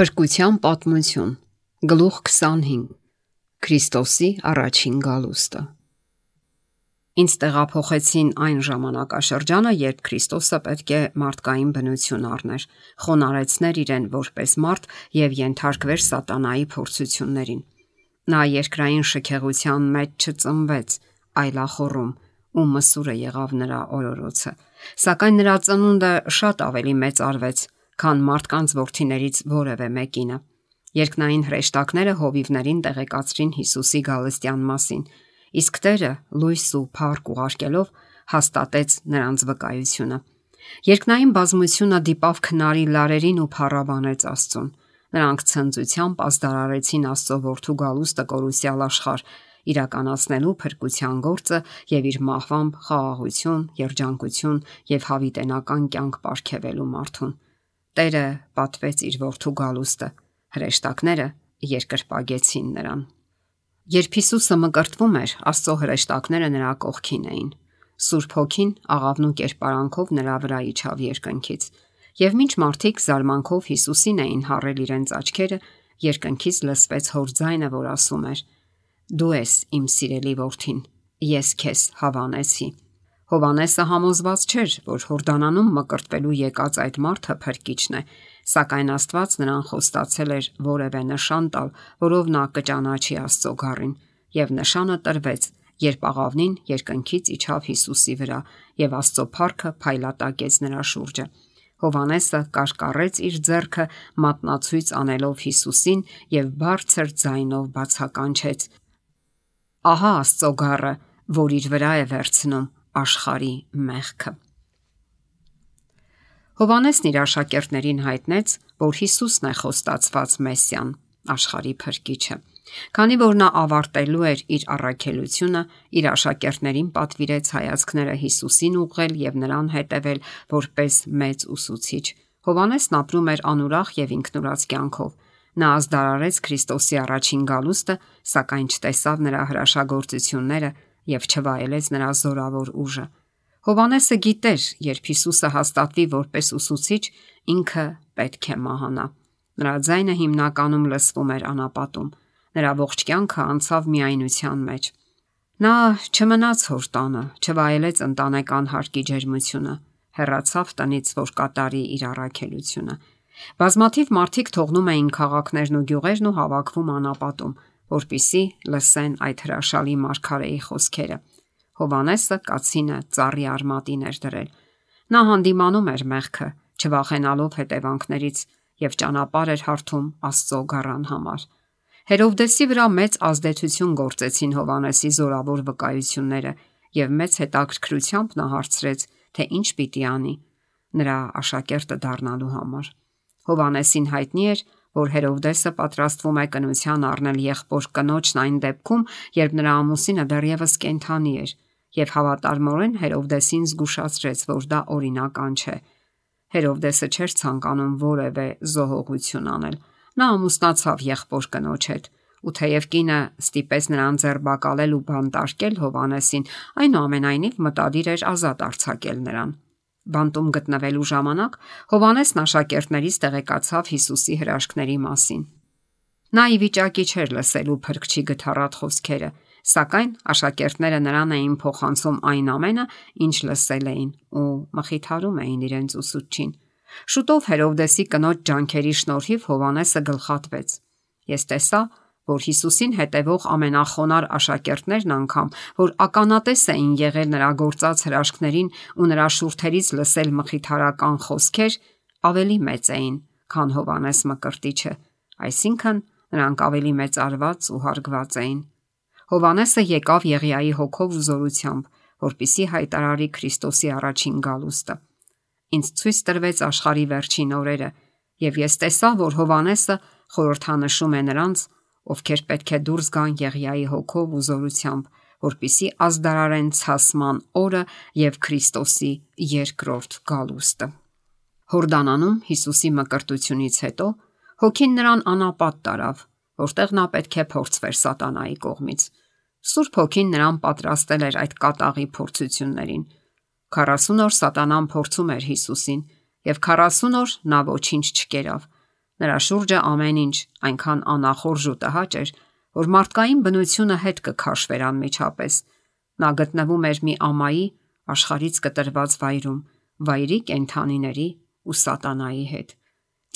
Փրկության պատմություն, գլուխ 25, Քրիստոսի առաջին գալուստը։ Ինձ տեղափոխեցին այն ժամանակաշրջանը, երբ Քրիստոսը պետք է մարդկային բնություն առներ, խոնարհեցներ իրեն որպես մարդ եւ ենթարկվեր սատանայի փորձություններին։ Նա երկրային շքեղության մեջ չծնվեց, այլ ախոռում, ու մսուրը եղավ նրա օրորոցը, սակայն նրա ծնունդը շատ ավելի մեծ արվեց, քան մարդկանց որդիներից որևէ մեկինը։ Երկնային հրեշտակները հովիվներին տեղեկացրին Հիսուսի գալստյան մասին, իսկ Տերը լույս ու փառք ուղարկելով հաստատեց նրանց վկայությունը։ Երկնային բազմությունը դիպավ քնարի լարերին ու փառաբանեց Աստծուն։ Նրանք ցնծությամբ ազդարարեցին Աստծո որդու գալուստը կորուսյալ աշխարհ, իրականացնելու փրկության գործը եւ իր մահվամբ խաղաղություն, երջանկություն եւ հավիտենական կյանք պարգևելու մարդուն։ Տերը պատվեց իր որդու գալուստը, հրեշտակները երկրպագեցին նրան։ Երբ Հիսուսը մկրտվում էր, Աստծո հրեշտակները նրա կողքին էին։ Սուրբ Հոգին աղավնու կերպարանքով նրա վրա իջավ երկնքից, եւ մինչ մարդիկ զարմանքով Հիսուսին էին հառել իրենց աչքերը, երկնքից լսվեց հոր ձայնը, որ ասում էր. «Դու ես իմ սիրելի որդին, ես քեզ հավանեցի»։ Հովհաննեսը համոզված չէր, որ Հորդանանում մկրտվելու եկած այդ մարդը փրկիչն է, սակայն Աստված նրան խոստացել էր որևէ նշան տալ, որով նա կճանաչի Աստծո գառին, եւ նշանը տրվեց, երբ աղավնին երկնքից իջավ Հիսուսի վրա, եւ Աստծո փառքը փայլատակեց նրա շուրջը։ Հովհաննեսը կարկառեց իր ձեռքը մատնացույց անելով Հիսուսին եւ բարձր ձայնով բացականչեց. «Ահա Աստծո գառը, որ իր վրա է վերցնում աշխարհի մեղքը»։ Հովհաննեսն իր աշակերտներին հայտնեց, որ Հիսուսն է խոստացված Մեսիան, աշխարհի փրկիչը։ Քանի որ նա ավարտելու էր իր առաքելությունը, իր աշակերտներին պատվիրեց հայացքները Հիսուսին ուղղել եւ նրան հետևել որպես մեծ ուսուցիչ։ Հովհաննեսն ապրում էր անուրախ եւ ինքնուրախ կյանքով։ Նա ազդարարեց Քրիստոսի առաջին գալուստը, սակայն չտեսավ նրա հրաշագործությունները եւ չվայելեց նրա զորավոր ուժը։ Հովհաննեսը գիտեր, երբ Հիսուսը հաստատվի որպես ուսուցիչ, ինքը պետք է մահանա։ Նրա ձայնը հիմնականում լսվում էր անապատում։ Նրա ողջ կյանքը անցավ միայնության մեջ։ Նա չմնաց հոր տանը, չվայելեց ընտանեկան հարկի ջերմությունը, հեռացավ տնից, որ կատարի իր առաքելությունը։ Բազմաթիվ մարդիկ թողնում էին քաղաքներն ու գյուղերն ու հավաքվում անապատում, որպիսի լսեն այդ հրաշալի մարգարեի խոսքերը։ Հովհաննեսը կացինը ծառի արմատին էր դրել։ Նա հանդիմանում էր մեղքը, չվախենալով հետևանքներից, եւ ճանապարհ էր հարթում Աստծո գառան համար։ Հերովդեսի վրա մեծ ազդեցություն գործեցին Հովհաննեսի զորավոր վկայությունները, եւ մեծ հետաքրքրությամբ նա հարցրեց, թե ինչ պիտի անի նրա աշակերտը դառնալու համար։ Հովհաննեսին հայտնի էր, որ Հերովդեսը պատրաստվում է կնության առնել եղբոր կնոջն այն դեպքում, երբ նրա ամուսինը դեռևս կենդանի էր, եւ հավատարմորեն Հերովդեսին զգուշացրեց, որ դա օրինական չէ։ Հերովդեսը չէր ցանկանում որևէ զոհողություն անել։ Նա ամուսնացավ եղբոր կնոջ հետ, ու թեև կինը ստիպեց նրան ձերբակալել ու բանտարկել Հովհաննեսին, այնուամենայնիվ մտադիր էր ազատ արձակել նրան։ Բանտում գտնվելու ժամանակ Հովհաննեսն աշակերտներից տեղեկացավ Հիսուսի հրաշքների մասին։ Նա ի վիճակի չէր լսելու փրկչի գթառատ խոսքերը, սակայն աշակերտները նրան էին փոխանցում այն ամենը, ինչ լսել էին, ու մխիթարում էին իրենց ուսուցչին։ Շուտով Հերովդեսի կնոջ ջանքերի շնորհիվ Հովհաննեսը գլխատվեց։ Ես տեսա, որ Հիսուսին հետևող ամենախոնար աշակերտներն անգամ, որ ականատես էին եղել նրա գործած հրաշքներին ու նրա շուրթերից լսել մխիթարական խոսքեր, ավելի մեծ էին, քան Հովհաննես Մկրտիչը, այսինքն նրանք ավելի մեծարված ու հարգված էին։ Հովհաննեսը եկավ Եղիայի հոգով ու զորությամբ, որպիսի հայտարարի Քրիստոսի առաջին գալուստը։ Ինձ ցույց տրվեց աշխարհի վերջին օրերը, եւ ես տեսա, որ Հովհաննեսը խորհրդանշում է նրանց, ովքեր պետք է դուրս գան Եղիայի հոգով ու զորությամբ, որպիսի ազդարարեն ցասման օրը եւ Քրիստոսի երկրորդ գալուստը։ Հորդանանում Հիսուսի մկրտությունից հետո Հոգին նրան անապատ տարավ, որտեղ նա պետք է փորձվեր սատանայի կողմից։ Սուրբ Հոգին նրան պատրաստել էր այդ կատաղի փորձություններին։ 40 օր սատանան փորձում էր Հիսուսին, եւ 40 օր նա ոչինչ չկերավ։ Նրա շուրջը ամեն ինչ այնքան անախորժ ու տհաճ էր, որ մարդկային բնությունը հետ կքաշվեր անմիջապես։ Նա գտնվում էր մի ամայի աշխարհից կտրված վայրում, վայրի կենդանիների ու սատանայի հետ։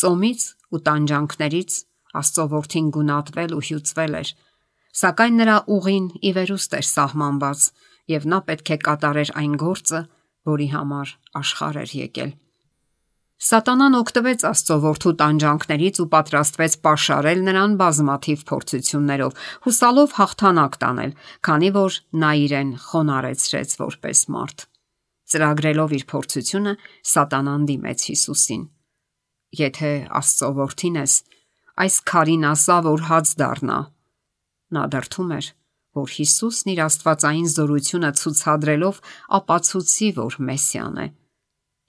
Ծոմից ու տանջանքներից Աստծո որդին գունատվել ու հյուծվել էր, սակայն նրա ուղին ի վերուստ էր սահմանված, եւ նա պետք է կատարեր այն գործը, որի համար աշխարհ էր եկել։ Սատանան օգտվեց Աստծո որդու տանջանքներից ու պատրաստվեց պաշարել նրան բազմաթիվ փորձություններով, հուսալով հաղթանակ տանել, քանի որ նա իրեն խոնարհեցրեց որպես մարդ։ Ծրագրելով իր փորձությունը, Սատանան դիմեց Հիսուսին. «Եթե Աստծո որդին ես, այս քարին ասա, որ հաց դառնա»։ Նա դրթում էր, որ Հիսուսն իր աստվածային զորությունը ցուցադրելով ապացուցի, որ Մեսիան է։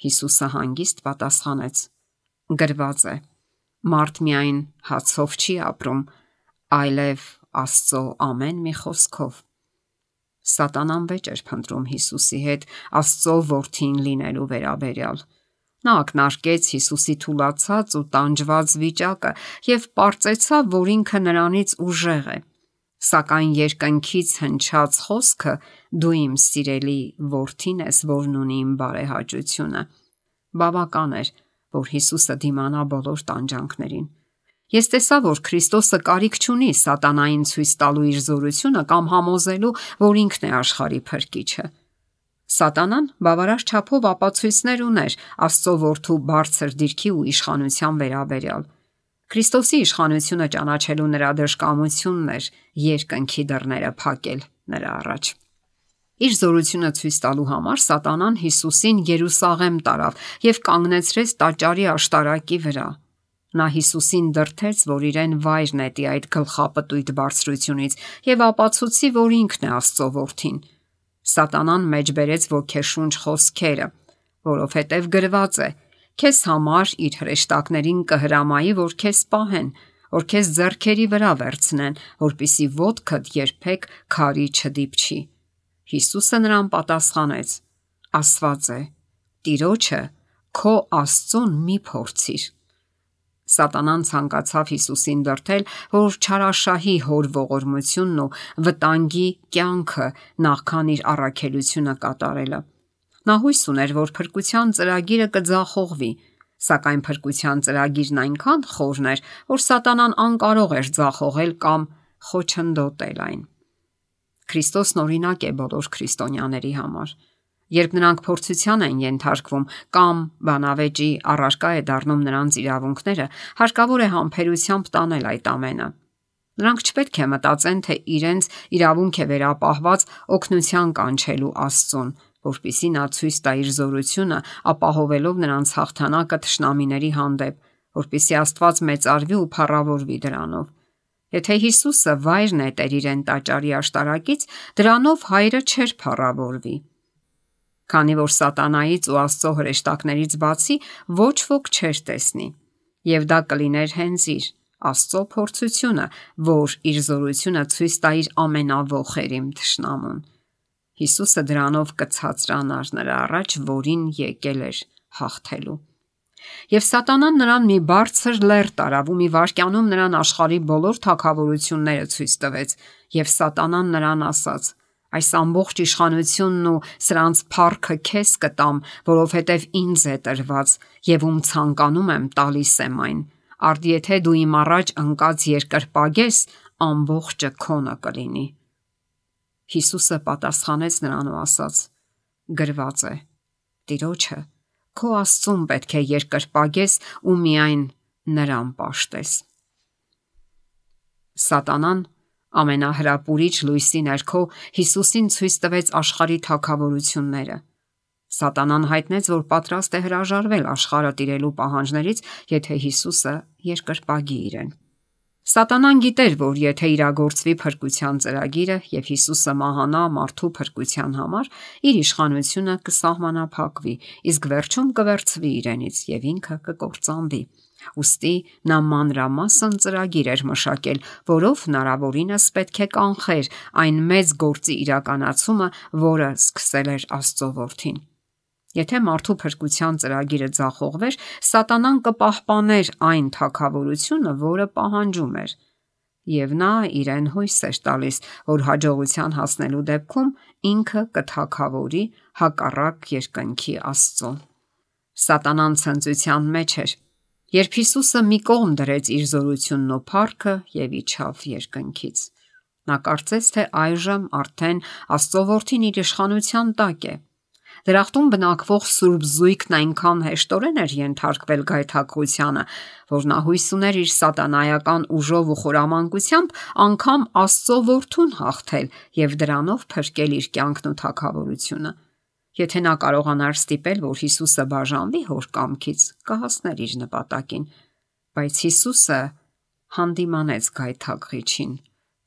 Հիսուսը հանգիստ պատասխանեց. «Գրված է. մարդ միայն հացով չի ապրում, այլև Աստծո ամեն մի խոսքով»։ Սատանան վեճ էր փնտրում Հիսուսի հետ Աստծո որդին լինելու վերաբերյալ։ Նա ակնարկեց Հիսուսի թուլացած ու տանջված վիճակը եւ պարծեցավ, որ ինքը նրանից ուժեղ է։ Սակայն երկնքից հնչած խոսքը՝ «Դու իմ սիրելի որդին ես, որն ունի իմ բարեհաճությունը», բավական էր, որ Հիսուսը դիմանա բոլոր տանջանքներին։ Ես տեսա, որ Քրիստոսը կարիք չունի սատանային ցույց տալու իր զորությունը կամ համոզելու, որ ինքն է աշխարհի փրկիչը։ Սատանան բավարար չափով ապացույցներ ուներ Աստծո որդու բարձր դիրքի ու իշխանության վերաբերյալ։ Քրիստոսի իշխանությունը ճանաչելու նրա դժկամությունն էր երկնքի դռները փակել նրա առաջ։ Իր զորությունը ցույց տալու համար Սատանան Հիսուսին Երուսաղեմ տարավ եւ կանգնեցրեց տաճարի աշտարակի վրա։ Նա Հիսուսին դրդեց, որ իրեն վայր նետի այդ գլխապտույտ բարձրությունից եւ ապացուցի, որ ինքն է Աստծո որդին։ Սատանան մեջբերեց ոգեշունչ խոսքերը, որովհետև գրված է. «Քեզ համար իր հրեշտակներին կհրամայի, որ քեզ պահեն, որ քեզ ձեռքերի վրա վերցնեն, որպեսզի ոտքդ երբեք քարի չդիպչի»։ Հիսուսը նրան պատասխանեց. «Ասված է. Տիրոջը քո Աստծուն մի փորձիր»։ Սատանան ցանկացավ Հիսուսին դրդել, որ չարաշահի հոր ողորմությունն ու վտանգի կյանքը նախքան իր առաքելությունը կատարելը։ Նա հույս ուներ, որ փրկության ծրագիրը կձախողվի, սակայն փրկության ծրագիրն այնքան խորն էր, որ Սատանան անկարող էր ձախողել կամ խոչընդոտել այն։ Քրիստոսն օրինակ է բոլոր քրիստոնյաների համար։ Երբ նրանք փորձության են ենթարկվում կամ բանավեճի առարկա է դառնում նրանց իրավունքները, հարկավոր է համբերությամբ տանել այդ ամենը։ Նրանք չպետք է մտածեն, թե իրենց իրավունք է վերապահված օգնության կանչելու Աստծուն, որպեսզի նա ցույց տա իր զորությունը, ապահովելով նրանց հաղթանակը թշնամիների հանդեպ, որպեսզի Աստված մեծարվի ու փառավորվի դրանով։ Եթե Հիսուսը վայր նետեր իրեն տաճարի աշտարակից, դրանով հայրը չէր փառավորվի։ Քանի որ Սատանայից ու Աստծո հրեշտակներից բացի ոչ ոք չէր տեսնի, եւ դա կլիներ հենց իր Աստծո փորձությունը, որ իր զորությունը ցույց տա իր ամենավոխերիմ թշնամուն։ Հիսուսը դրանով կցածրանար նրա առաջ, որին եկել էր հաղթելու։ Եվ Սատանան նրան մի բարձր լեռ տարավ ու մի վայրկյանում նրան աշխարհի բոլոր թագավորությունները ցույց տվեց, եւ Սատանան նրան ասաց. «Այս ամբողջ իշխանությունն ու սրանց փառքը քեզ կտամ, որովհետև ինձ է տրված, եւ ում ցանկանում եմ տալիս եմ այն։ Արդ եթե դու իմ առաջ ընկած երկրպագես, ամբողջը քոնը կլինի»։ Հիսուսը պատասխանեց նրան ու ասաց. «Գրված է. Տիրոջը քո Աստծուն պետք է երկրպագես ու միայն նրան պաշտես»։ Սատանան ամենահրապուրիչ լույսի ներքո Հիսուսին ցույց տվեց աշխարհի թագավորությունները։ Սատանան հայտնեց, որ պատրաստ է հրաժարվել աշխարհը տիրելու պահանջներից, եթե Հիսուսը երկրպագի իրեն։ Սատանան գիտեր, որ եթե իրագործվի փրկության ծրագիրը եւ Հիսուսը մահանա մարդու փրկության համար, իր իշխանությունը կսահմանափակվի, իսկ վերջում կվերցվի իրենից եւ ինքը կկործանվի։ Ուստի նա մանրամասն ծրագիր էր մշակել, որով հնարավորինս պետք է կանխեր այն մեծ գործի իրականացումը, որը սկսել էր Աստծո որդին։ Եթե մարդու փրկության ծրագիրը ձախողվեր, Սատանան կպահպաներ այն թագավորությունը, որը պահանջում էր, եւ նա իրեն հույս էր տալիս, որ հաջողության հասնելու դեպքում ինքը կթագավորի հակառակ երկնքի Աստծուն։ Սատանան ցնծության մեջ էր, երբ Հիսուսը մի կողմ դրեց իր զորությունն ու փառքը եւ իջավ երկնքից։ Նա կարծեց, թե այժմ արդեն Աստծո որդին իր իշխանության տակ է։ Դրախտում բնակվող սուրբ զույգն այնքան հեշտորեն էր ենթարկվել գայթակղությանը, որ նա հույս ուներ իր սատանայական ուժով ու խորամանկությամբ անգամ Աստծո որդուն հաղթել եւ դրանով փրկել իր կյանքն ու թագավորությունը։ Եթե նա կարողանար ստիպել, որ Հիսուսը բաժանվի հոր կամքից, կհասներ իր նպատակին, բայց Հիսուսը հանդիմանեց գայթակղիչին.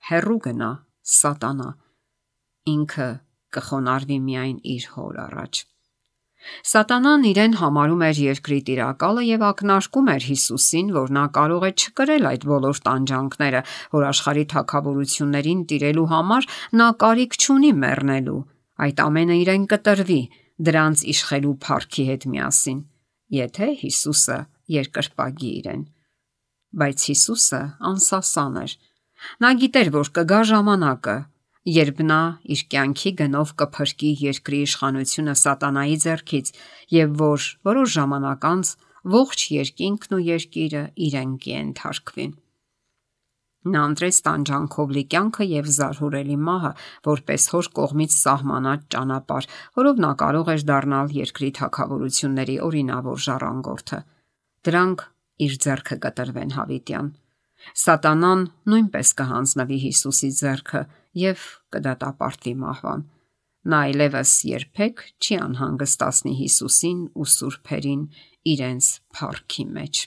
հեռու գնա, Սատանա, ինքը կխոնարհվի միայն իր հոր առաջ։ Սատանան իրեն համարում էր երկրի տիրակալը եւ ակնարկում էր Հիսուսին, որ նա կարող է չկրել այդ բոլոր տանջանքները, որ աշխարհի թագավորություններին տիրելու համար նա կարիք չունի մեռնելու։ Այդ ամենը իրեն կտրվի դրանց իշխելու փառքի հետ միասին, եթե Հիսուսը երկրպագի իրեն։ Բայց Հիսուսը անսասան էր։ Նա գիտեր, որ կգա ժամանակը, երբ նա իր կյանքի գնով կփրկի երկրի իշխանությունը Սատանայի ձեռքից եւ որ որոշ ժամանակ անց ողջ երկինքն ու երկիրը իրեն կենթարկվի։ Նա ընտրեց տանջանքով լի կյանքը եւ զարհուրելի մահը, որպես հոր կողմից սահմանած ճանապարհ, որով նա կարող էր դառնալ երկրի թագավորությունների օրինավոր ժառանգորդը։ Դրանք իր ձեռքը կտրվեն հավիտյան։ Սատանան նույնպես կհանձնվի Հիսուսի ձեռքը եւ կդատապարտվի մահվան։ Նա այլևս երբեք չի անհանգստացնի Հիսուսին ու սուրբերին իրենց փառքի մեջ։